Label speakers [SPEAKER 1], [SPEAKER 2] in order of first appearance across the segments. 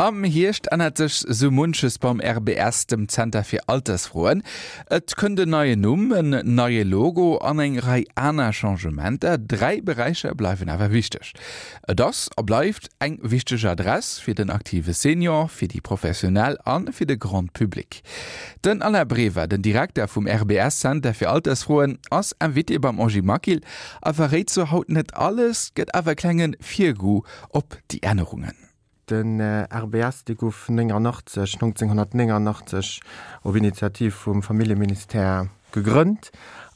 [SPEAKER 1] Am Hierscht ännert sech sou munches beim RBS, dem Zenter fir Altersfroen. Et kënnt en neien Numm, en neie Logo an eng Rei aner Changementer. 3 Beräicher bleiwen awer wichteg. Et ass a bleift eng wichteg Adress fir den aktive Senior, fir déi Professionell a fir de Grand Public. Den Alain Brever, den Direkter vum RBS Center fir Altersfroen, ass Invité beim Angie Maquil a verréit zwar haut net alles, gëtt awer e klenge Virgoût op déi Ännerungen.
[SPEAKER 2] Den RBS, dee gouf 89, 1989 op Initiativ vum Familljeministère gegrënnt.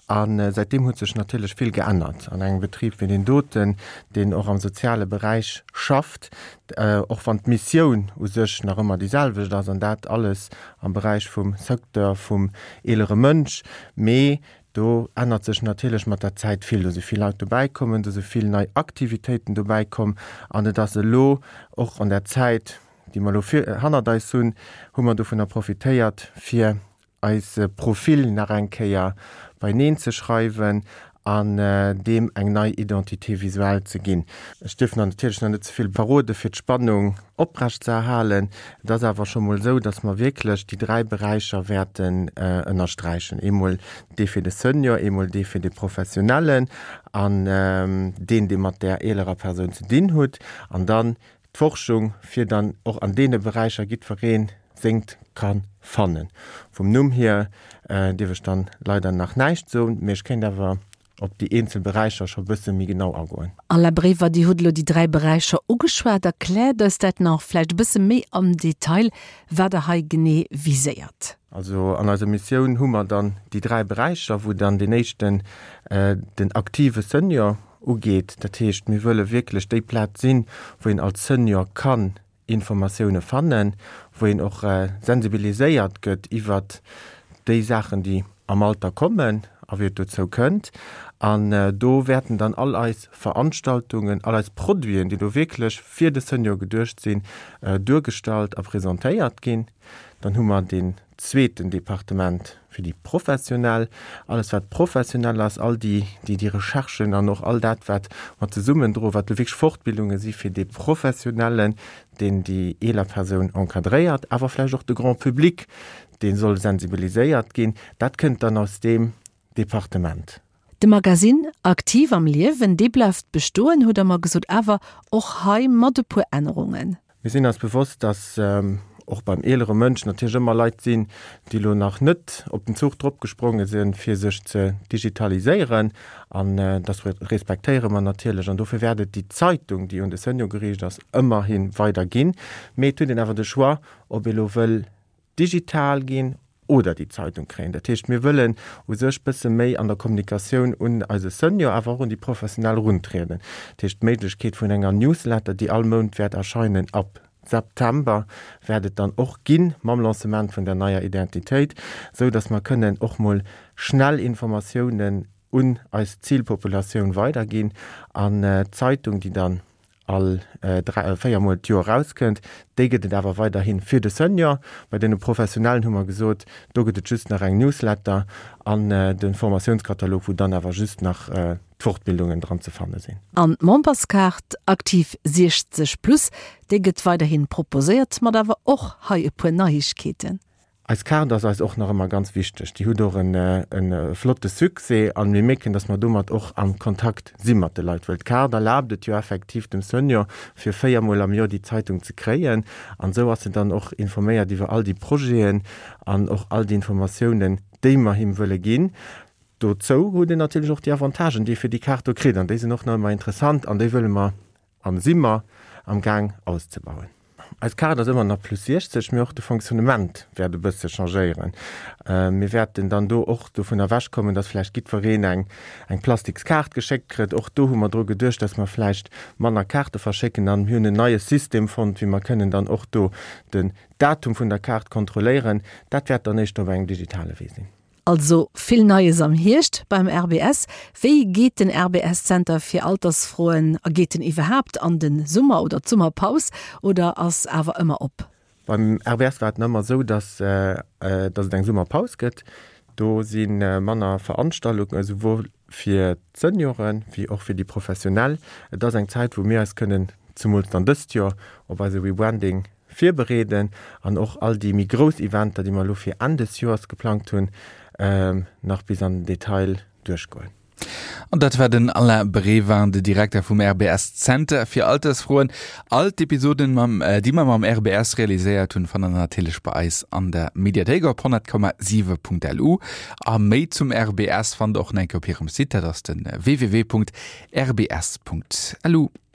[SPEAKER 2] A säitdeem huet sech natierlech vill geännert an engem Betrib wéi deen doten, deen och am soziale Beräich schafft, och wann d'Missioun u sech nach ëmmer déi selwecht ass, an dat alles am Beräich vum Secteur vum eelere Mënsch. Mee Do ännert sech natierlech mat der Zäit vill. Do si vill Leit dobäi kommen, do si vill nei Aktivitéiten dobäi komm an et ass elo och an der Zäit, déi mer elo hannert eis hunn, hu mer dovunner profitéiert, fir eise Profil nach eng Kéier beineen ze schreiwen an deem eng nei Identité visuelle ze ginn. Ech dierf nach natierlech nach net ze vill verrode fir d'Spannung oprecht ze erhalen. Et ass awer scho mol esou, datt mer wierklech déi 3 Beräicher wäerten ënnersträichen, eemol dee fir de Senior, eemol dee fir de Professionellen an deen, dee mat där eelerer Persoun ze dinn hutt, an dann d'Forschung, fir dann och an deene Beräicher jiddweree sengt ka fannen. Vum Numm hier dierf ech dann leider nach näischt soen, mee ech kéint awer op déi eenzel Beräicher scho bësse méi genau agoen.
[SPEAKER 3] Alain Brever, Dir hutt elo déi 3 Beräicher ugeschwat. Erkläert eis dat nach vläicht e bësse méi am Detail, wat Der hei genee viséiert.
[SPEAKER 2] Also an eiser Missioun hu mer dann déi 3 Beräicher, wou dann deen éischten den aktive Senior ugeet. Dat heescht, mir wëlle wierklech déi Plaz sinn, wou een als Senior kann Informatioune fannen, wou een och sensibiliséiert gëtt iwwert déi Saachen, déi am Alter kommen a wéi et dozou kënnt. An do wäerten dann all eis Veranstaltungen, all eis Produiten, déi do wierklech fir de Senior geduecht sinn, duergestallt a presentéiert ginn. Dann hu mer deen zweeten Departement fir déi Professionell, alles wat professionell ass, all déi, déi déi Recherchen an och all dat wat mer zesummen droen, wat elo wierklech Fortbildunge si fir dee Professionellen, deen déi eeler Persoun encadréiert, awer vläicht och de Grand public, dee soll sensibiliséiert ginn, dat kënnt dann aus deem Departement.
[SPEAKER 3] De Magasinn Aktiv am Liewen, dee bleift bestoen, hutt Der mer gesot, awer och hei mat e puer Ännerungen.
[SPEAKER 2] Mir sinn eis bewosst, dass och beim eelere Mënsch natierlech ëmmer Leit sinn, déi elo nach net op den Zuch dropgespronge sinn, fir sech ze digitaliséieren. An dass respektéiere mer natierlech. An dofir wäert et déi Zeitung, déi un de Senior geriicht ass, ëmmerhi weider ginn. Mee et huet een awer de Choix, ob ee lo wëll digital ginn oder déi Zeitung kréien. Dat heescht, mir wëllen u sech bësse méi an der Kommunikatioun un eise Senior, awer och un déi Professionell eruntrieden. Dat heescht, d'Méiglechkeet vun enger Newsletter, déi all Mount wäert erscheinen ab September, wäert et dann och ginn, mam Lancement vun der neier Identitéit, esou datt mer kënnen och mol schnell Informatiounen un eis Zilpopulatioun weiderginn an d'Zeitung, déi dann all 3, 4 Mol d'Joer erauskënnt. Déi gëtt et awer weiderhi fir de Senior. Bei deene Professionellen hu mer gesot, do gëtt et just nach eng Newsletter an de Formatiounskatalog, wou dann awer just nach d'Fortbildungen dran ze fanne sinn.
[SPEAKER 3] An d'Memberskaart Aktiv 60 plus, déi gëtt weiderhi proposéiert, mat awer och hei e puer Neiegkeeten.
[SPEAKER 2] Eis Kaart ass eis och nach ëmmer ganz wichteg. Déi huet och en flotte Succès an mir mierken, dass mer domat och am Kontakt si mat de Leit, well d'Kaart erlaabt et jo effektiv dem Senior, fir 4 mol am Joer déi Zeitung ze kréien an esou ass en dann och informéiert iwwer all déi Projeten an och all déi Informatiounen, déi mer him wëlle ginn. Dozou huet en natierlech och déi Avantagen, déi e fir déi Kaart do kritt an déi sinn och nach ëmmer interessant an déi wëlle mer An si mer am Gaang auszebauen. Eis Kaart ass ëmmer nach plus 60, mee och de Fonctionnement wäert e bësse changéieren. Mir wäerten dann do och dovun ewechkommen, dass vläicht jiddwereen eng eng plastiks Kaart geschéckt kritt. Och do hu mer dru geduecht, dass mer vläicht manner Kaarte verschécken an mir hunn en neie System fonnt, wéi mer kënnen dann och do den Datum vun der Kaart kontrolléieren. Dat wäert dann éischter op engem digitale Wee sinn.
[SPEAKER 3] Also vill Neies am Hierscht beim RBS. Wéi geet den RBS-Zenter fir Altersfroen a geet en iwwerhaapt an de Summer oder d'Summerpaus oder ass awer ëmmer op?
[SPEAKER 2] Beim RBS war et ëmmer esou, datt datt et eng Summerpaus gëtt. Do si manner Veranstaltungen, esouwuel fir d'Senioren wéi och fir déi Professionell. Et ass eng Zäit, wou mir eis kënnen, zemools dann dëst Joer, op eise Rebranding. virbereeden an och all déi méi grouss Eventer, déi mer elo fir Enn des Joers geplangt hunn, nach bis an den Detail duerchgoen.
[SPEAKER 1] An dat war den Alain Brevin, de Direkter vum RBS Zenter fir Altersfroen. All d'Episoden, mam, déi mer mam RBS realiséiert hunn, fannt der natierlech bei eis an der Mediathéik op 100,7.lu. A méi zum RBS fannt der och nach eng Kéier op hirem Site, dat ass de www.rbs.lu.